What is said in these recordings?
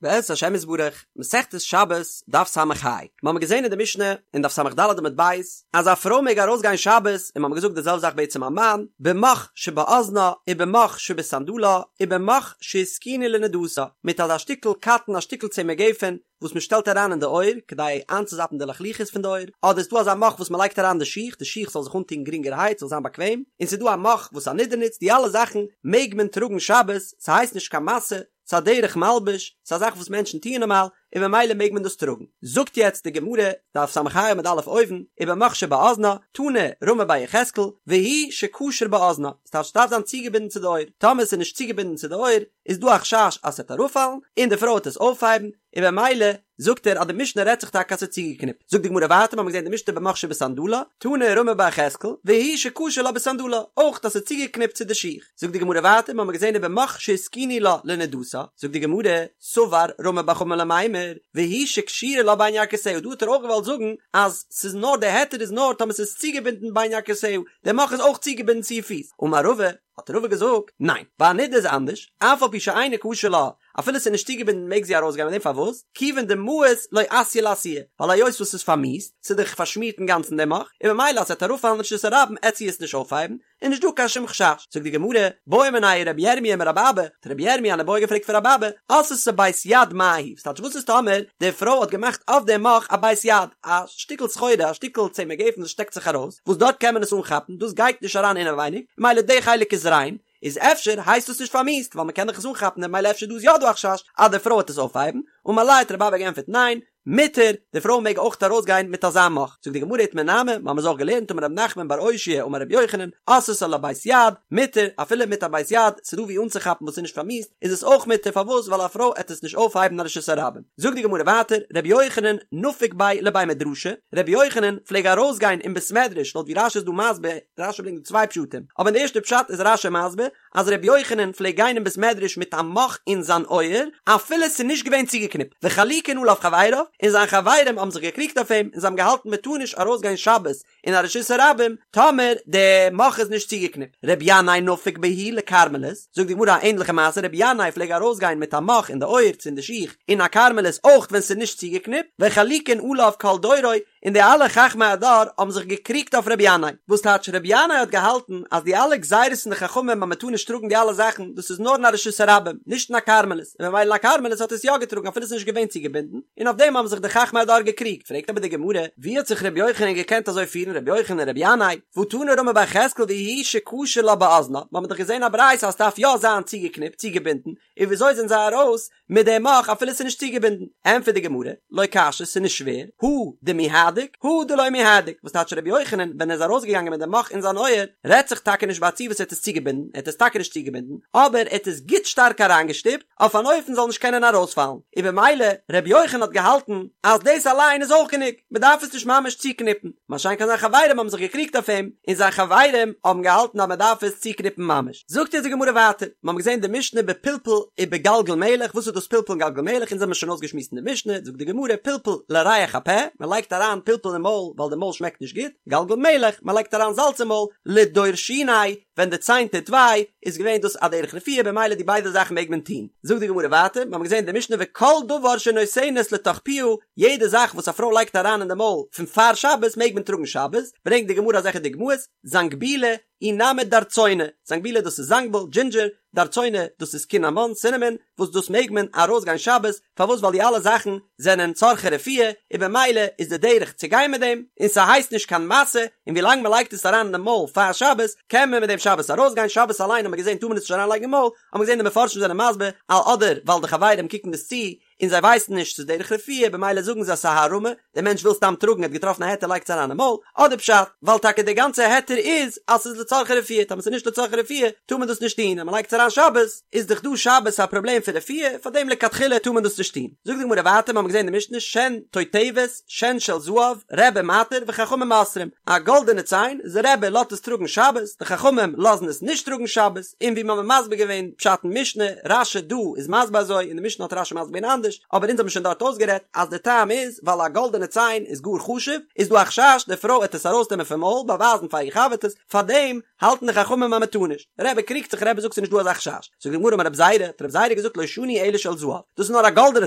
בעזרת השם יתברך, מסכת שבת, דף ס"ה. מיר האבן געזען אין די משנה, אין דף ס"ד עמוד ב', אז א פרוי מעג ארויסגיין שבת, און מיר האבן געזאגט די זעלבע זאך בעצם א מאן, במוך שבאזנה, ובמוך שבסנדלה, ובמוך שהתקינה לנדתה, מיט אזא שטיקל קאטן א שטיקל צמר גפן, וואס מען שטעלט אריין אין די אויער, כדי איינצוזאפן די לחלוחית פון די אויער, אדער איז דא אזא מוך וואס מען לייגט אריין די שיך, די שיך זאל זיך אנטון גרינגערהייט, זאל זיין באקוועם, און ס'איז דא א מוך וואס א נדה נוצט, די אלע זאכן מעג מען טראגן שבת, ס'הייסט נישט קיין משא, ס'איז א דרך מלבוש, ס'איז א זאך וואס מענטשן טוען נארמאל, און ממילא מעג מען דאס טראגן. זאגט יעצט די גמרא, דף ס"ה עמוד א' אויבן, ובמוך שבאזנה, תנא רמי בר יחזקאל, והוא שקשור באזנה, ס'טייטש ס'דארף זיין צוגעבינדן צו די אויער, טאמער ס'איז נישט צוגעבינדן צו די אויער, איז דא א חשש אז ס'וועט אראפפאלן, און די פרוי וועט עס אויפהייבן, און במילא זאגט ער אז די משנה רעדט זיך טאקע אז ס'איז צוגעקניפט. זאגט די גמרא ווייטער, מ'האמיר געזען די משנה במוך שבסנדלה, תנא רמי בר יחזקאל, והוא שקשור לה בסנדלה, אויך אז ס'איז צוגעקניפט צו די שיך. זאגט די גמרא ווייטער, מ'האמיר געזען ובמוך שהתקינו לה לנדתה, זאגט די גמרא, סבר רמי בר חמא למימר, והוא שקשורה לה בין ירכותיה, דא האט ער אויך געוואלט זאגן אז ס'איז נאר די היתר איז נאר טאמער ס'איז צוגעבינדן בין ירכותיה, די מוך איז אויך צוגעבינדן צו איר פיס. אמר רבא, האט רבא געזאגט, ניין, ביי א נדה איז אנדערש, אף על פי שאינו קשור לה, אפילו ס'איז נישט צוגעבינדן מעג זי ארויסגיין מיט דעם, פארוואס? כיוון דמאיס לא אתיא לאתויי, ווייל היות וואס ס'איז פארמיאוסט, ס'איז דאך פארשמירט אינגאנצן דער מוך, און ממילא אז ס'וועט אראפפאלן אין רשות הרבים עט זי עס נישט אויפהייבן, איז נישט דא קיין שום חשש. זאגט די גמרא, בעא מיניה רבי ירמיה מרבי אבא, האט רבי ירמיה אן איבעיא געפרעגט פון רבי אבא, עשתה בית יד מהו, ס'טייטש וואס איז טאמער די פרוי האט געמאכט אויף דעם מוך א בית יד, א שטיקל סחורה, א שטיקל צמר גפן וואס שטעקט זיך ארויס, וואס דארט קען מען עס אנכאפן, דאס גייט נישט אריין אינעווייניג, ממילא די חלק איז ריין, איז אפשר הייסט דאס נישט פארמיאוסט ווייל מען קען דאך עס אנכאפן און ממילא אפשר דא איז יא דא א חשש אז די פרוי וועט עס אויפהייבן, אמר ליה האט רבי אבא געענטפערט ניין, מותר, די פרוי מעג אויך ארויסגיין מיט אזא מוך, זאגט די גמרא איתמר נמי, מיר האבן עס אויך געלערנט אמר רב נחמן בר אושעיא אמר רבי יוחנן, עשתה לה בית יד, מותר, אפילו מיט א בית יד, ס'איז דא ווי אנצוכאפן וואס איז נישט פארמיאוסט, איז עס אויך מותר, פארוואס ווייל א פרוי עט עס נישט אויפהייבן אין רשות הרבים. זאגט די גמרא ווייטער, רבי יוחנן נפיק ביה לבי מדרשא, רבי יוחנן פלעג ארויסגיין אין בית מדרש, לויט ווי רש"י איז דא מסביר, רש"י ברענגט דא צוויי פשטים, אבער אין די ערשטע פשט איז רש"י מסביר אז רבי יוחנן פלעג גיין אין בית מדרש מיט א מוך אין זיין אויער אפילו עס איז נישט געווען צוגעקניפט, וחלוקין עליו חבריו, און זיין חברים האבן זיך געקריגט אויף אים און זיי האבן געהאלטן מען טאר נישט ארויסגיין שבת אין א רשות הרבים טאמער די מוך איז נישט צוגעקניפט. רבי ינאי נפיק בהו לכרמלית, זאגט די גמרא א ענדליכע מעשה, רבי ינאי פלעג ארויסגיין מיט א מוך אין די אויער צו אין די שיך אין א כרמלית אויך ווען ס'איז נישט צוגעקניפט, וחלוקין עליו כל דורו, און די אלע חכמי הדור האבן זיך געקריגט אויף רבי ינאי, וואס טייטש רבי ינאי האט געהאלטן אז די אלע גזירות פון די חכמים אז מען טאר נישט טראגן די אלע זאכן דאס איז נאר אין א רשות הרבים נישט אין א כרמלית, און ממילא אין א כרמלית האט ער עס יא געטראגן אפילו עס איז נישט געווען צוגעבינדן, און אויף דעם האבן זיך די חכמי הדור געקריגט, פרעגט אבער די גמרא, ווי האט זיך רבי יוחנן געקענט אזוי פירן רבי יוחנן און רבי ינאי, והא תנא רמי בר יחזקאל והוא שקשור לה באזנה, מיר האבן דאך געזען א ברייתא אז ס'דארף יא זיין צוגעקניפט, צוגעבינדן, און וויאזוי זענען זיי ארויס מיט די מוך אפילו ס'איז נישט צוגעבינדן? ענטפערט די גמרא, לא קשיא, ס'איז נישט שווער, הא דמיהדק, הא דלא מיהדק, וואס טייטש רבי יוחנן ווען ער איז ארויסגעגאנגען מיט די מוך אין זיין אויער, רעדט זיך טאקע נישט ביי א ציור וואס ער האט עס צוגעבינדן, ער האט עס טאקע נישט צוגעבינדן, אבער ער האט עס גוט שטארק אריינגעשטופט, אויף אן אופן זאל נישט קענען ארויספאלן, און במילא רבי יוחנן האט געהאלטן אז דאס אליין איז אויך גענוג, מען דארף עס נישט ממש צוקניפן, מה שאין כן זיין חברים האבן זיך געקריגט אויף אים, און זיין חברים האבן געהאלטן אז מען דארף עס צוקניפן ממש. זאגט אונז די גמרא ווייטער, מיר האבן געזען די משנה בפלפל ובגלגל מלח, וואס איז דאס פלפל און גלגל מלח, אונז האבן עס שוין אויסגעשמועסט אין די משנה, זאגט די גמרא, פלפל לריח הפה, מען לייגט אריין פלפל אין מויל ווייל די מויל שמעקט נישט גוט, גלגל מלח, מען לייגט אריין זאלץ אין מויל, לדור שיני, ווען די ציין טוט וויי, איז געווען דאס א דרך רפואה, במילא די ביידע זאכן מעג מען טון. זאגט די גמרא ווייטער, מיר האבן געזען אין די משנה וכל דבר שנותנת לתוך פיה, יעדע זאך וואס א פרוי לייגט אריין אין די מויל פון פאר שבת מעג מען טראגן שבת, ברענגט די גמרא אזעלכע דוגמאות, זנגבילא, אי נמי דרצונא, זנגבילא דאס איז זנגביל, דזשינדזשער, דרצונא דאס איז קינאמאן, סינעמאן, וואס דאס מעג מען ארויסגיין שבת, פארוואס ווייל די אלע זאכן זענען צרכי רפואה, און במילא איז די דרך צו גיין מיט דעם, און ס'הייסט נישט קיין משא, און ווילאנג מ'לייגט עס אריין אין די מויל פאר שבת, קען מען מיט דעם שבת ארויסגיין, שבת אליין האט מען געזען טאר מען עס נישט אריינלייגן אין מויל, האט מען געזען די מפרשים זענען מסביר, אדער ווייל די חברים קוקן דאס צו, און זיי ווייסן נישט ס'איז דרך רפואה במילא זאגן זיי ס'איז א הערמה, דער מענטש וויל סתם טראגן ער האט געטראפן א היתר לייגט עס אריין אין מויל, אדער פשט, ווייל טאקע דער גאנצע היתר איז אז ס'איז לצרכי רפואה, טאמער ס'איז נישט לצרכי רפואה טאר מען דאס נישט טון, אז מ'לייגט עס אריין שבת איז דאך דא שבת א פראבלעם פון רפואה, פארדעם לכתחילה טאר מען דאס נישט טון. זאגט די גמרא ווייטער, מ'האמיר געזען אין די משנה שן תותבת, שן של זהב, רבי מתיר וחכמים אוסרים, א גאלדענע ציין, איז רבי לאזט עס טראגן שבת, די חכמים לאזן עס נישט טראגן שבת, און ווי מ'האמיר מסביר געווען פשט אין משנה, רש"י דא איז מסביר אזוי, אין די משנה האט רש"י מסביר געווען אנדערש. אנדערש, אבער אונז האבן שוין דארט אויסגערעדט אז די טעם איז ווייל א גאלדענע ציין איז גאר חשוב, איז דא א חשש די פרוי עט עס ארויסנעמען פון מויל באווייזן פאר איר חבר'טעס, פארדעם האלטן די חכמים אז מ'טאר נישט. רבי קריגט זיך רבי זאגט ס'איז נישט דא אזא חשש. זאגט די גמרא אמר רבי זירא, האט רבי זירא געזאגט לא שנו אלא של זהב, דאס איז נאר א גאלדענע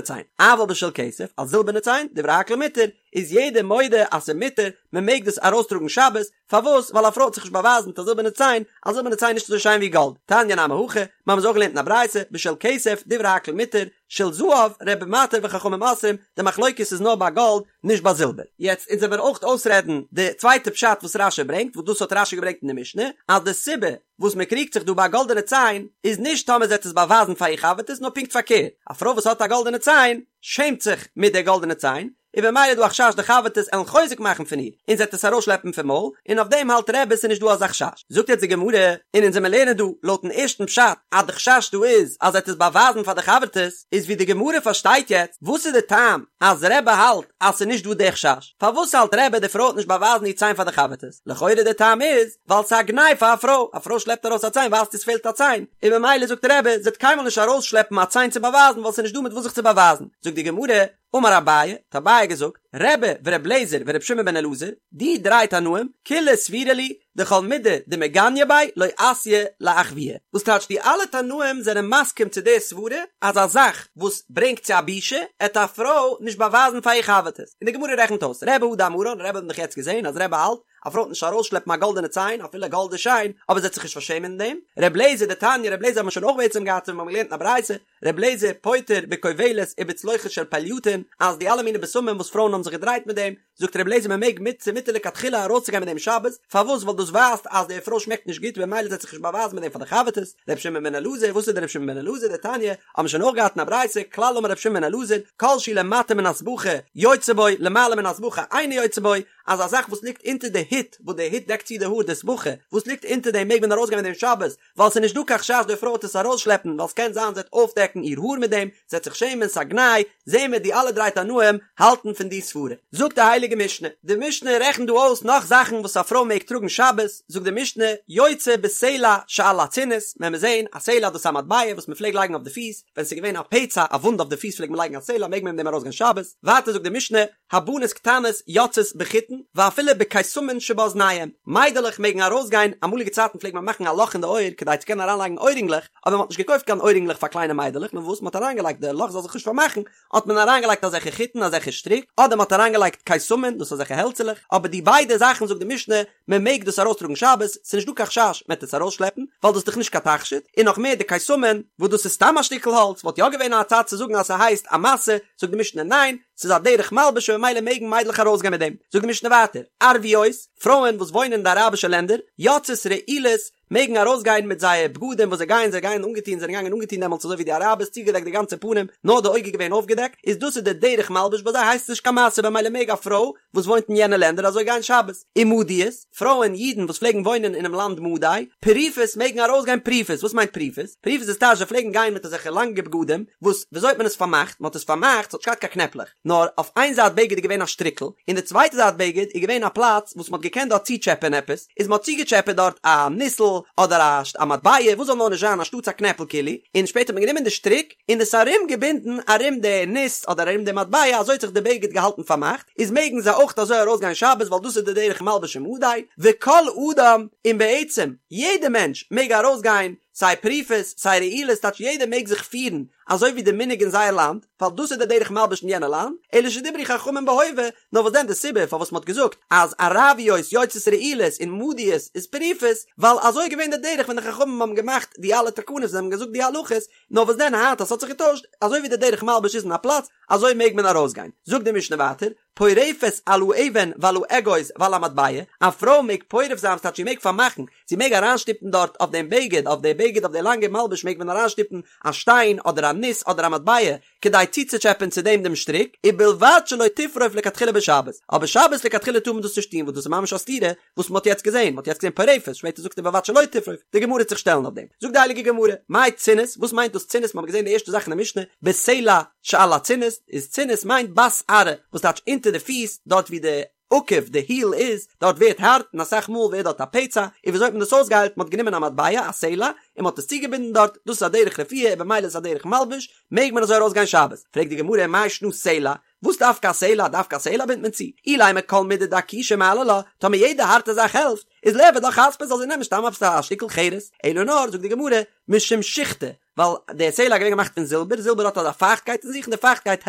ציין, אבל בשל כסף, א זילבערנע ציין, דברי הכל מותר, איז יעדער מודה אז ס'איז מותר, מ'מעג דאס ארויסטראגן שבת, פארוואס? ווייל א פרוי עט זיך נישט באווייזן מיט א זילבערנע ציין, א זילבערנע ציין איז נישט אזוי שיין ווי גאלד. תניא נמי הכי, מיר האבן עס אויך געלערנט אין א ברייתא, בשל כסף, דברי הכל מותר, של זהב, רבי מתיר וחכמים אוסרים, די מחלוקת איז נאר ביי גאלד, נישט ביי זילבער. יעצט אונז וועמיר אויך אויסרעדן די צווייטע פשט וואס רש"י ברענגט, וואס דאס האט רש"י געברענגט אין די משנה, אז די סיבה וואס מען קריגט זיך דא ביי א גאלדענע ציין, איז נישט טאמער זי עט עס באווייזן פאר איר חבר'טעס, נאר פונקט פארקערט, א פרוי וואס האט א גאלדענע ציין, שעמט זיך מיט די גאלדענע ציין, און במילא איז דא א חשש די חבר'טעס עלן חוזק מאכן פון איר, און זי עט עס ארויסשלעפן פון מויל, און אויף דעם האלט רבי ס'איז נישט דא אזא חשש. זאגט יעצט די גמרא, און אונז עמיר לערנען דא לויטן ערשטן פשט אז די חשש דא איז אז זי עט עס באווייזן פאר די חבר'טעס, איז ווי די גמרא פארשטייט יעצט, וואס איז די טעם אז רבי האלט אז ס'איז נישט דא די חשש? פארוואס האלט רבי די פרוי עט נישט באווייזן איר ציין פאר די חבר'טעס? לכאורה די טעם איז, ווייל ס'איז א גנאי פאר א פרוי, א פרוי שלעפט ארויס א ציין ווייזט איר ס'פעלט א ציין, און ממילא זאגט רבי זי עט קיינמאל נישט ארויסשלעפן א ציין צו באווייזן ווייל ס'איז נישט דא מיט וואס זיך צו באווייזן, זאגט די גמרא, אמר אביי, האט אביי געזאגט, רבי ור' אליעזר ור' שמעון בן אלעזר, די דריי תנאים, כולהו סבירא להו, דכל מידי דמגניא ביה לא אתיא לאחויי. וואס טייטש די אלע תנאים זענען מסכים צו די סברה אז א זאך וואס ברענגט צו א בושה עט א פרוי נישט באווייזן פאר איר חבר'טעס, און די גמרא רעכנט אויס, רבי הא דאמרן, רבי האט מען דאך יעצט געזען אז רבי האלט א פרוי עט נישט ארויסשלעפן א גאלדענע ציין אפילו גאלד איז שיין, אבער זי עט זיך נישט פארשעמען אין דעם, ר' אליעזר דתניא, ר' אליעזר האט מען שוין אויך בעצם געהאט ווען מיר האבן געלערנט אין א ברייתא, ר' אליעזר פוטר בכובלת ובצלוחית של פלייטון, אז די אלע מיני בשמים וואס פרויען האבן זיך געדרייט מיט דעם, זאגט ר' אליעזר מען מעג מיט ס'איז מותר לכתחילה ארויסצוגיין מיט דעם שבת, פארוואס ווייל דאס ווייזט אז די פרוי שמעקט נישט גוט במילא זי עט זיך נישט באווייזן מיט דעם פאר די חבר'טעס, ר' שמעון בן אלעזר, וואס איז דער ר' שמעון בן אלעזר דתניא, האבן מיר שוין אויך געהאט אין א ברייתא, כלל אמר ר' שמעון בן אלעזר, כל שהוא למטה מן הסבכה יוצא בו, למעלה מן הסבכה אינו יוצא בו, אז א זאך וואס ליגט אונטער די הוט, וואס די הוט דעקט צו די האר די סבכה, וואס ליגט אונטער דעם מעג מען ארויסגיין מיט דעם שבת, ווייל ס'איז נישט דא קיין חשש די פרוי וועט עס ארויסשלעפן, ווייל ס'קען זיין זי וועט אויפדעקן איר האר מיט דעם, זי וועט זיך שעמען, ס'א גנאי, זעהן מיר די אלע דריי תנאים האלטן פון די סברה. זאגט די הייליגע משנה, די משנה רעכנט דא אויס נאך זאכן וואס א פרוי מעג טראגן שבת, זאגט די משנה, יוצאה בסלע שעל הצינית, וועלן מיר זעהן, א סלע דאס איז א מטבע וואס מ'פלעג לייגן אויף די פיס, ווען ס'איז געווען א פצע א וואונד אויף די פיס פלעגט מען לייגן א סלע מעג מען מיט דעם ארויסגיין שבת, ווייטער זאגט די משנה, הבנות קטנות יוצאות בחוטין ואפילו בקיסמין שבאזניהם, מיידלעך מעגן ארויסגיין, אמאליגע צייטן פלעגט מען מאכן א לאך אין די אויער כדי צו קענען אריינלייגן אוירינגלעך, אבער מען האט נישט געקויפט קיין אוירינגלעך פאר קליינע מיידלעך, נאר וואס מען האט אריינגעלייגט די לאך זאל זיך נישט פארמאכן, האט מען אריינגעלייגט אזעלכע חוטין אזעלכע שטריק, אדער מען האט אריינגעלייגט קיסמין, דאס אזעלכע העלצעלעך, אבער די ביידע זאכן זאגט די משנה, מען מעג דאס ארויסטראגן שבת, ס'איז נישט דא קיין חשש מען וועט עס ארויסשלעפן, ווייל דאס איז דאך נישט קיין תכשיט, און נאך מער די קיסמין, וואס דאס איז סתם א שטיקל האלץ, וואלט יא געווען א צד צו זאגן אז ס'הייסט א משא, זאגט די משנה ניין, ס'איז א דרך מלבוש און ממילא מעגן מיידלעך ארויסגיין מיט דעם. זאגט די משנה ווייטער, ערביות, פרויען וואס וואוינען אין די אראבישע לענדער, יוצאות רעולות, מעגן ארויסגיין מיט זייער בגדים וואס זיי גייען, זיי גייען אנגעטון, זיי זענען געגאנגען אנגעטון דעמאלטס אזוי ווי די אראבערס, צוגעדעקט די גאנצע פנים, נאר די אויג איז געווען אויפגעדעקט, איז דאס איז די דרך מלבוש ביי זיי הייסט עס נישט קיין משא במילא מעג א פרוי וואס וואוינט אין יענע לענדער אזוי גיין שבת. ומדיות, פרויען אידן וואס פלעגן וואוינען אינעם לאנד מדי, פרופות מעגן ארויסגיין פרופות, וואס מיינט פרופות? פרופות איז טייטש זיי פלעגן גיין מיט אזעלכע לאנגע בגדים, וואס וויאזוי האט מען עס פארמאכט? מען האט עס פארמאכט, ס'האט נישט געהאט קיין קנעפלעך, נאר אויף איין זייט בגד איז געווען א שטריקל, און די צווייטע זייט בגד איז געווען א פלאץ וואס מען האט געקענט דארט צוטשעפען עפעס, איז מען האט צוגעטשעפעט דארט א ניסל אדער א א מטבע, וואס זאל נאר נישט זיין, אנשטאטס א קנעפל כאילו, און שפעטער האט מען גענומען די שטריק און עס ארום געבינדן ארום די ניס אדער ארום די מטבע, אזוי האט זיך די בגד געהאלטן פארמאכט, איז מעגן זיי אויך אזוי ארויסגיין שבת ווייל דאס איז די דרך מלבוש אין מדי, וכל אדם, און בעצם יעדע מענטש מעג ארויסגיין סיי פרופות סיי רעולות טייטש יעדער מעג זיך פירן אזוי ווי די מנהג אין זייער לאנד, ווייל דאס איז די דרך מלבוש אין יענע לאנד, אלא שדברו חכמים בהווה, נאר וואס דען די סיבה פארוואס מ'האט געזאגט אז ערביות יוצאות רעולות און מדיות איז פרופות, ווייל אזוי איז געווען די דרך ווען די חכמים האבן געמאכט די אלע תקנות און האבן געזאגט די הלכות, נאר וואס דען היינט אז ס'האט זיך געטוישט, אזוי ווי די דרך מלבוש איז אין א פלאץ, אזוי מעג מען ארויסגיין. זאגט די משנה ווייטער, פורפת על האבן ועל האגוז ועל המטבע, א פרוי מעג פורף זיין ס'טייטש זי מעג פארמאכן, זי מעג אריינשטופן דארט אויף דעם בגד, אויף די בגד אויף די לאנגע מלבוש מעג מען אריינשטופן א שטיין אדער א ניס אדער א מטבע, כדי צוצוטשעפען צו דעם דעם שטריק, ובלבד שלא תפרוף לכתחילה בשבת, אבער שבת לכתחילה טאר מען דאס נישט טון וואס דאס איז ממש א סתירה וואס מען האט יעצט געזען, מען האט יעצט געזען פורפת, שפעטער זאגט ער ובלבד שלא תפרוף, די גמרא וועט זיך שטעלן אויף דעם, זאגט די הייליגע גמרא, מאי צינית, וואס מיינט דאס צינית, מען האט געזען די ערשטע זאך אין די משנה, בסלע שעל הצינית, איז צינית מיינט בת ארעא, וואס טייטש אונטער די פיס, דארט ווי די. עקב, די היל איז, דארט ווערט הארט און אסאך מאל ווערט דארט א פצע, און וויאזוי האט מען דאס אויסגעהיילט, מען האט גענומען א מטבע, א סלע, און מען האט עס צוגעבינדן דארט, דאס איז א דרך רפואה און במילא איז עס א דרך מלבוש, מעג מען אזוי ארויסגיין שבת? פרעגט די גמרא מאי שנא סלע, וואס דווקא א סלע, דווקא א סלע בינדט מען צו? אילימא כל מידי דאקושא מעלי לה, טאמער יעדע הארטע זאך העלפט, איז ליעבד לה חספא זאל זי נעמען סתם עפעס א שטיקל חרס, אלא נאר, זאגט די גמרא, משום שיחתא, ווייל די סלע איז געווען געמאכט פון זילבער, זילבער האט אזא פייכטקייט אין זיך און די פייכטקייט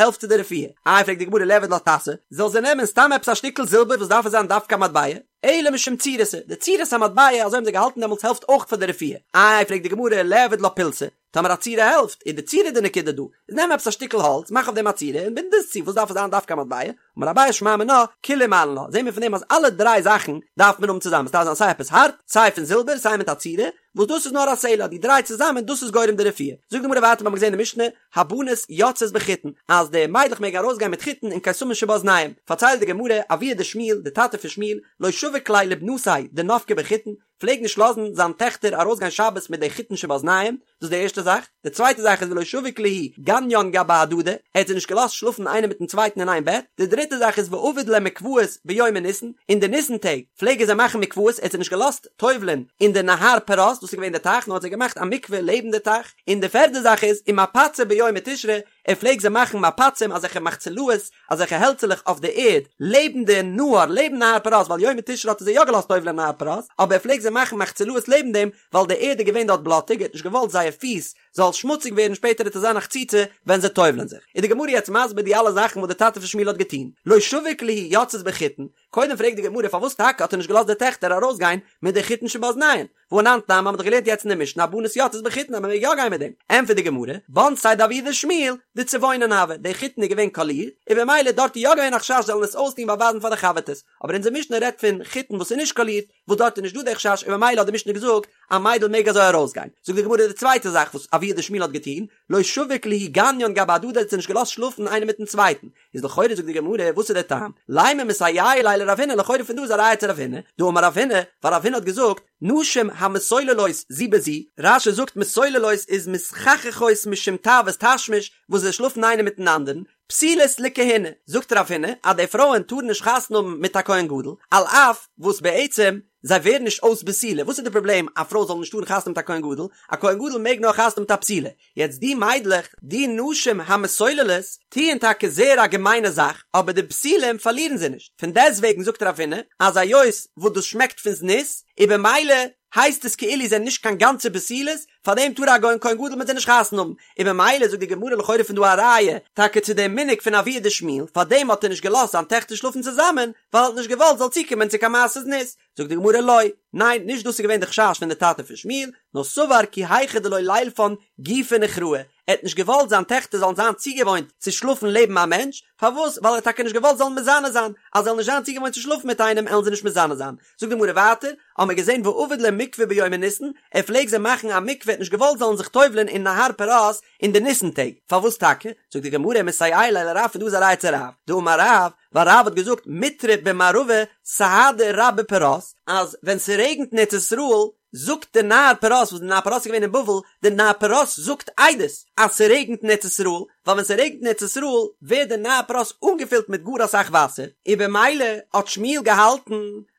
העלפט צו די רפואה. איי פרעגט די גמרא ליעבד לה טסא, זאל זי נעמען סתם עפעס א שטיקל זילבער וואס דארף עס זיין דווקא א מטבע? אלא משום צורתא, די צורת המטבע אזוי האבן זיי געהאלטן דעמאלטס העלפט אויך פאר די רפואה. איי פרעגט די גמרא ליעבד לה פולסא, טאמער א צורה העלפט, איז די צורה די נקודה דא, איז נעם עפעס א שטיקל האלץ, מאך אויף דעם א צורה און בינד עס צו, וואס דארף עס זיין דווקא א מטבע? אמר אביי שמע מינה, כולהו מעלן לה, זעהן מיר פון דעם אז אלע דריי זאכן דארף מען האבן צוזאמען, עס דארף זיין סיי עפעס הארט, סיי פון זילבער, סיי מיט א צורה, וואס דאס איז נאר א סלע, די דריי צוזאמען דאס איז גורם די רפואה. זאגט די גמרא ווייטער, מיר האבן געזעהן אין די משנה, הבנות יוצאות בחיטין, אז די מיידלעך מעגן ארויסגיין מיט חיטין און קיסמין שבאזניהם, פארציילט די גמרא, אבוה דשמואל, די טאטע פון שמואל, לא שביק להו לבנתיה דנפקי בחיטין, פלעג נישט לאזן זיין טעכטער ארויסגיין שבת מיט די חיטין שבאזניהם, דאס איז די ערשטע זאך, די צווייטע זאך איז ולא שביק להו גניין גבי הדדי, ער האט זיי נישט געלאזט שלאפן איינער מיטן צווייטן אין איין בעט, די דריטע זאך איז ועביד להו מקוואות ביומי ניסן, אין די ניסן טעג פלעג ער זיי מאכן מקוואות, ער האט זיי נישט געלאזט טובל'ען אין די נהר פרת, דאס איז געווען די טייך, נאר האט זיי געמאכט א מקווה לעבן די טייך, און די פערדע זאך איז ומפצי ביומי תשרי, ער פלעג זיי מאכן מפצים אזעלכע מחצלאות, אזעלכע העלצעלעך אויף די ערד, לעבן די נהר, לעבן נהר פרת, ווייל יומי תשרי האט ער זיי יא געלאזט טובל'ען אין נהר פרת, אבער ער פלעג זיי מאכן מחצלאות לעבן דעם, ווייל די ערד איז געווען דארט בלאטיג, ער האט נישט געוואלט זייער פיס זאל שמוציג ווערן שפעטער וועט עס זיין א חציצה ווען זיי טובל'ען זיך. איז די גמרא יעצט מסביר די אלע זאכן וואס די טאטע פון שמואל האט געטון, לא שביק להו יוצאות בחיטין, קודם פרעגט די גמרא פארוואס טאקע האט ער נישט געלאזט די טעכטער ארויסגיין מיט די חיטין שבאזניהם, והא אנן תנן מ'האט דאך געלערנט יעצט אין די משנה הבנות יוצאות בחיטין אז מ'מעג יא גיין מיט דעם, ענטפערט די גמרא, בנתיה דאבוה דשמואל דצבעונין הוו, די חיטין איז געווען קאלירט, און במילא דארט איז יא געווען א חשש זיי זאלן עס אויסטון באווייזן פאר די חבר'טעס, אבער אונזער משנה רעדט פון חיטין וואס איז נישט קאלירט, וואס דארט איז נישט דא די חשש און במילא האט די משנה געזאגט א מיידל מעג אזוי ארויסגיין, זאגט די גמרא די צווייטע זאך וואס אבוה דשמואל האט געטון, לא שביק להו גניין גבי הדדי האט זיי נישט געלאזט שלאפן איינער מיטן צווייטן, איז לכאורה זאגט די גמרא וואס איז דער טעם? לימא מסייע ליה לרב הונא לכאורה פון דא איז א ראיה צו רב הונא, דאמר רב הונא, ווייל רב הונא האט געזאגט נשים המסוללות זו בזו, רש"י זאגט מסוללות איז מתחככות משום תאוות תשמיש וואס זיי שלאפן איינער מיטן אנדערן, פסולות לכהונה, זאגט רב הונא אז די פרויען טארן נישט חתונה האבן מיט א כהן גדול, על אף וואס בעצם זיי ווערן נישט אויס בתולה, וואס איז די פראבלעם א פרוי זאל נישט טארן חתונה מיט א כהן גדול, א כהן גדול מעג נאר חתונה מיט א בתולה, יעצט די מיידלעך, די נשים המסוללות, טוען טאקע זייער א געמיינע זאך, אבער די בתולים פארלירן זיי נישט, פון דעסטוועגן זאגט רב הונא אז היות וואס דאס שמעקט פון זנות, איז במילא הייסט עס כאילו זיי זענען נישט קיין גאנצע בתולות, פארדעם טאר א כהן גדול מיט זיי נישט חתונה האבן, און במילא זאגט די גמרא לכאורה פון דא א ראיה טאקע צו דעם מנהג פון אבוה דשמואל, פארדעם האט ער נישט געלאזט זיין טעכטער שלאפן צוזאמען, ווייל ער האט נישט געוואלט זאל צוקומען צו קיין מעשה זנות, זאגט די גמרא לא, ניין, נישט דאס איז געווען די חשש פון די טאטע פון שמואל, נאר סבר כי היכי דלא לילפן גופא נוכראה, ער האט נישט געוואלט זיין טעכטער זאלן זיין צוגעוואוינט צו שלאפן לעבן א מענטש, פארוואס? ווייל ער האט טאקע נישט געוואלט זאלן מזנה זיין, אז זיי זאלן נישט זיין צוגעוואוינט צו שלאפן מיט איינעם עלן זיי נישט מזנה זיין. זאגט די גמרא ווייטער, האמער געזען ועביד להו מקווה ביומי ניסן, ער פלעג זיי מאכן א מקווה, ער האט נישט געוואלט זאלן זיך טובל'ען אין נהר פרת אין די ניסן טעג, פארוואס טאקע? זאגט די גמרא מסייע ליה לרב פון דא איז א ראיה צו רב, דאמר רב, ווייל רב האט געזאגט מיטרא במערבא סהדא רבה פרת, אז ווען ס'רעגנט אין ארץ ישראל זאגט די נהר פרת, וואס די נהר פרת איז געווען אין בבל, די נהר פרת זאגט עדות אז ס'רעגנט אין ארץ ישראל, ווייל ווען ס'רעגנט אין ארץ ישראל ווערט די נהר פרת אנגעפילט מיט גאר אסאך וואסער, און במילא האט שמואל געהאלטן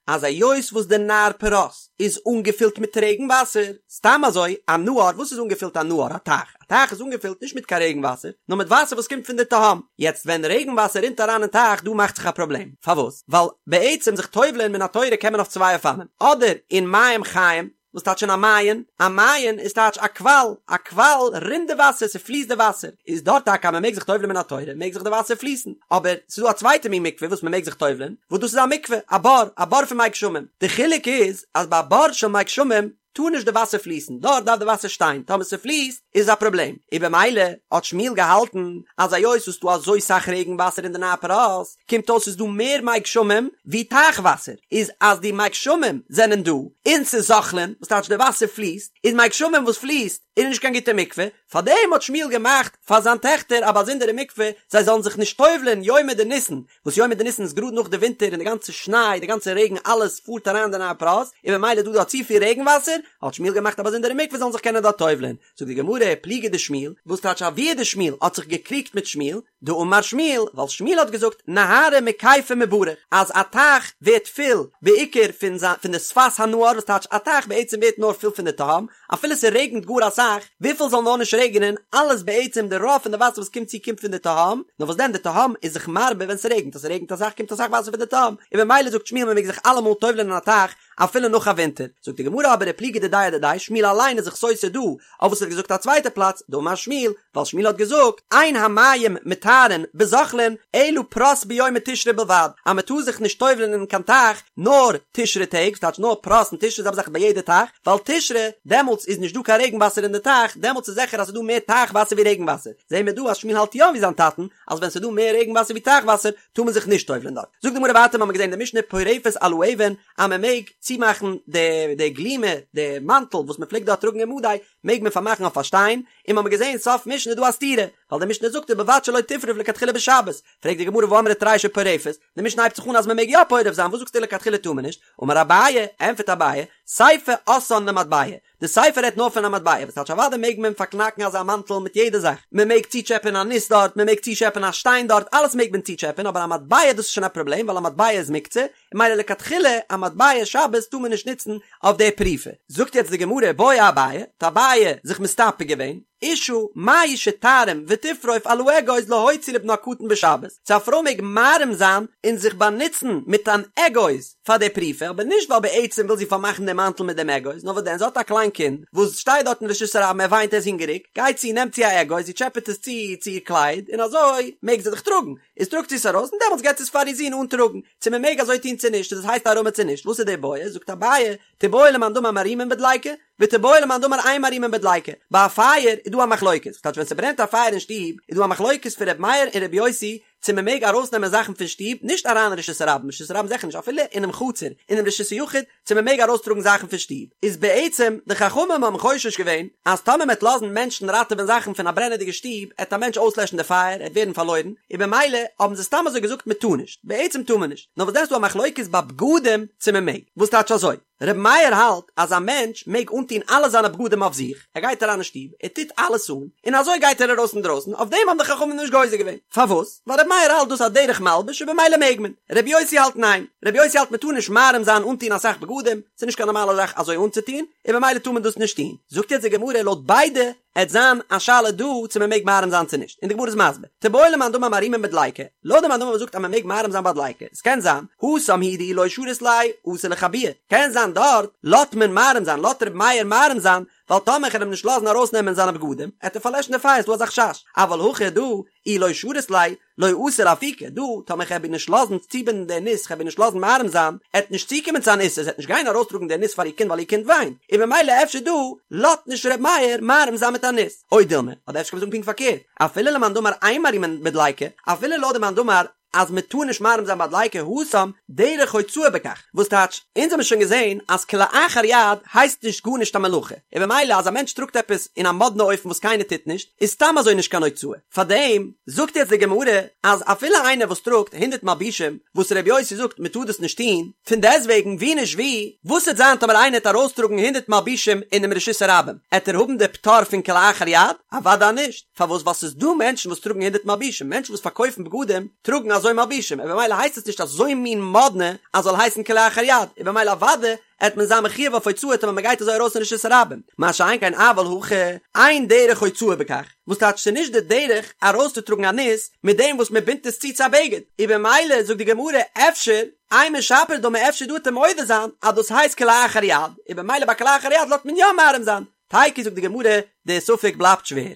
אז היות וואס די נהר פרת איז אנגעפילט מיט רעגן וואסער, סתם אזוי א נהר, וואס איז אנגעפילט א נהר? א טייך, א טייך איז אנגעפילט נישט מיט קיין רעגן וואסער, נאר מיט וואסער וואס קומט פון די תהום, יעצט ווען רעגן וואסער רינט אריין אין טייך דא מאכט זיך א פראבלעם, פארוואס? ווייל בעצם זיך טובל'ען מן התורה קען מען אויף צוויי אופנים, אדער אין מים חיים, וואס טייטש אין א מעיין? א מעיין איז טייטש א קוואל, א קוואל רינט די וואסער, ס'פליסט די וואסער, איז דארט טאקע אז מ'מעג זיך טובל'ען מן התורה, מעג זיך די וואסער פליסן, אבער ס'איז דא א צווייטע מין מקווה וואס מ'מעג זיך טובל'ען, וואס דאס איז א מקווה, א בור, א בור פון מי גשמים, די חילוק איז אז ביי א בור של מי גשמים טאר נישט די וואסער פליסן, דארט דארף די וואסער שטיין, טאמער ס'פליסט איז א פראבלעם, און במילא האט שמואל געהאלטן אז היות ס'איז דא אזוי סאך רעגן וואסער אין די נהר פרת, קומט אויס ס'איז דא מער מי גשמים ווי טייך וואסער, איז אז די מי גשמים זענען דא און ס'איז זוחלין, וואס טייטש די וואסער פליסט, איז מי גשמים וואס פליסט איז נישט קיין גוטע מקווה, פארדעם האט שמואל געמאכט פאר זיין טעכטער א באזונדערע מקווה זיי זאלן זיך נישט טובל'ען יומי דניסן, וואס יומי דניסן איז גראד נאך די ווינטער און די גאנצע שניי, די גאנצע רעגן אלעס פארט אריין אין די נהר פרת, און ממילא איז דא דא צופיל רעגן וואסער, האט שמואל געמאכט א באזונדערע מקווה זאלן זיך קענען דארט טובל'ען, זאגט די גמרא, פליגא דשמואל, וואס טייטש אבוה דשמואל האט זיך געקריגט מיט שמואל, דאמר שמואל, ווייל שמואל האט געזאגט נהרא מכיפיה מברך, אז א טייך ווערט פול בעיקר פון זיין פון די שפת הנהר, וואס טייטש א טייך בעצם ווערט נאר פול פון די תהום, אפילו ס'רעגנט גאר אסאך, וויפיל זאל נאר נישט רעגענען, אלעס בעצם די רוב פון די וואסער וואס קומט צו קומט פון די תהום, נאר וואס דען די תהום איז זיך מרבה ווען ס'רעגנט, אז ס'רעגנט אסאך קומט אסאך וואסער פון די תהום, און במילא זאגט שמואל מ'מעג זיך אלעמאל טובל'ען אין א טייך אפילו נאך א ווינטער, זאגט די גמרא אבער ופליגא דידיה אדידיה, שמואל אליין איז זיך סותר דא, אויף וואס ער האט געזאגט א צווייטע פלאץ, דאמר שמואל, ווייל שמואל האט געזאגט, אין המים מטהרין בזוחלין אלא פרת ביומי תשרי בלבד, אז מען טאר זיך נישט טובל'ען אין קיין טייך נאר תשרי טעג, ס'טייטש נאר פרת און תשרי זעלבע זאך ביי יעדע טייך, ווייל תשרי, דעמאלטס איז נישט דא קיין רעגן וואסער אין די טייך, דעמאלטס איז זיכער אז ס'איז דא מער טייך וואסער ווי רעגן וואסער, זעהן מיר דא אז שמואל האלט יא ווי זיין טאטן, אז ווען ס'איז דא מער רעגן וואסער ווי טייך וואסער, טאר מען זיך נישט טובל'ען דארט. זאגט די גמרא ווייטער, מ'האמיר געזעהן אין די משנה פורפת על האבן, אז מען מעג צומאכן די די גלימה, די מאנטל וואס מען פלעגט דארט טראגן אין מדי, מעג מען פארמאכן אויף א שטיין, און מ'האמיר געזעהן סוף משנה איז דא א סתירה, ווייל די משנה זאגט ובלבד שלא תפרוף לכתחילה בשבת, פרעגט די גמרא והאמרת רישא פורפת, די משנה הייבט זיך אן אז מען מעג יא פורף זיין, וואס זאגסטו לכתחילה טאר מען נישט? אמר אביי, ענטפערט אביי, סיפא אתאן למטבע, די סיפא רעדט נאר פון א מטבע, וואס טייטש אוודאי מעג מען פארקנאקן אזא מאנטל מיט יעדע זאך, מען מעג צוטשעפען א ניס דארט, מען מעג צוטשעפען א שטיין דארט, אלעס מעג מען צוטשעפען, אבער א מטבע דאס איז שוין א פראבלעם ווייל א מטבע איז מוקצה, און ממילא לכתחילה א מטבע שבת טאר מען נישט נוצן אויף די פריפה. זאגט יעצט די גמרא, בעי אביי, האט אביי זיך מסתפק געווען, אשה מהו שתערים ותפרוף על האגוז להוציא לבנה הקטן בשבת, צו א פרוי מעג מערים זיין און זיך באנוצן מיט אן אגוז פאר די פריפה, אבער נישט ווייל בעצם וויל זי פארמאכן דעם מאנטל מיט דעם אגוז, נאר וואס דען זי האט א קליין קינד וואס שטייט דארט אין רשות הרבים ער וויינט ער איז הונגעריג, גייט זי נעמט זי א אגוז זי טשעפעט עס צו צו איר קלייד און אזוי מעג זי דאך טראגן, איז טראגט זי עס ארויס און דעמאלטס געבט זי עס פאר איר זון אנטראגן, צו מען מעג אזוי טון צו נישט, צו דאס הייסט הערמה צו נישט, וואס איז די בעיא, זאגט אביי, תיבעי למאן דאמר מערימין בדליקה, ותיבעי למאן דאמר אין מערימין בדליקה, ביי א פייער איז דא א מחלוקת, ס'טייטש ווען ס'ברענט א פייער אין שטוב איז דא א מחלוקת פון ר' מאיר און ר' יוסי צו מ'מעג ארויסנעמען זאכן פון שטוב, נישט אריין אין רשות הרבים, רשות הרבים זיכער נישט, אפילו אינעם חצר, אינעם רשות היחיד, צו מ'מעג ארויסטראגן זאכן פון שטוב, איז בעצם די חכמים האבן חושש געווען אז טאמער מ'עט לאזן מענטשן ראטעווען זאכן פון א ברענעדיגע שטוב, עט א מענטש אויסלעשן די פייער, עט ווערן פארלוירן, און במילא האבן זיי סתם אזוי געזאגט מ'טאר נישט, בעצם טאר מען נישט, נאר וואס דען ס'דא א מחלוקת ביי בגדים צו מ'מעג, וואס טייטש אזוי? רבי מאיר האלט אז א מענטש מעג אנטון אלע זיינע בגדים אויף זיך, ער גייט אריין אין שטוב, ער טוט אלעס אן, און אזוי גייט ער ארויס אינדרויסן, אויף דעם האבן די חכמים נישט גוזר געווען. פארוואס? ווייל רבי מאיר האלט דאס א דרך מלבוש און במילא מעג מען. רבי יוסי האלט ניין. רבי יוסי האלט מען טאר נישט מערים זיין אנטון אסאך בגדים, ס'איז נישט קיין נארמאלע זאך אזוי אנצוטון, און במילא טאר מען דאס נישט טון. זאגט יעצט די גמרא לויט ביידע, עט זיין א שאלה דא צו מען מעג מערים זיין צו נישט, און די גמרא איז מסביר, תיבעי למאן דאמר מערימין בדליקה, לויט די מאן דאמר וואס זאגט אז מען מעג מערים זיין ביי דליקה, עס קען זיין, התם הוא דאי לא שרית ליה, אתי לכבויי, קען זיין דארט לאט מען מערים זיין, לאט ר' מאיר מערים זיין, ווייל טאמער כ'על אים נישט לאזן ארויס נעמען זיינע בגדים, עט ער פארלעשן די פייער, ס'דא אזא חשש, אבל הכא דא, אי לא שרית ליה, לא אתי לאפוקי, דא, טאמער כ'עב איר נישט לאזן צובינדן די ניס, כ'עב איר נישט לאזן מערים זיין, עט נישט צוקומען צו אן איסור, זי עט נישט גיין ארויסטראגן די ניס פאר איר קינד ווייל איר קינד וויינט, און במילא אפשר דא, לאט נישט ר' מאיר מערים זיין מיט א ניס. או דילמא, אדער אפשר קען מען זאגן פונקט פארקערט, אפילו למאן דאמר אין מערימין בדליקה, אפילו לויט די מאן דאמר אז מען טאר נישט מערים זיין ביי דליקה, התם, דרך הוצאה בכך, וואס טייטש, אונז האבן שוין געזען אז כלאחר יד הייסט נישט גארנישט א מלאכה, און במילא אז א מענטש טראגט עפעס אין א מאדנע אופן וואס קיינער טוט נישט, איז סתם אזוי נישט קיין הוצאה. פארדעם זאגט יעצט די גמרא אז אפילו איינער וואס טראגט הונדערט מלבושים, וואס ר' יוסי זאגט מען טאר דאס נישט טון, פון דעסטוועגן ווי נישט ווי, וואס וועט זיין טאמער איינער העט ארויסטראגן הונדערט מלבושים אינעם רשות הרבים, עט ער האבן די פטור פון כלאחר יד? אוודאי נישט, פארוואס ווייל ס'איז דא מענטשן וואס טראגן הונדערט מלבושים, מענטשן וואס פארקויפן בגדים טראגן אזוי מלבושים, און במילא הייסט עס נישט אזוי מין מאדנע אז זאל הייסן כלאחר יד, און במילא אוודאי עט מען זיין מחויב אויף הוצאה טאמער מען גייט אזוי ארויס אין רשות הרבים, מה שאין כן אבל הכא, אין דרך הוצאה בכך, וואס טייטש ס'איז נישט די דרך ארויסצוטראגן א ניס מיט דעם וואס מען בינדט עס צו צו א בגד, און במילא זאגט די גמרא אפשר, אימא שפיר דמי אפשר דא עט ער מודה זיין אז דאס הייסט כלאחר יד, און במילא ביי כלאחר יד לאזט מען יא מערים זיין, תיקו זאגט די גמרא, די ספק בלייבט שווער.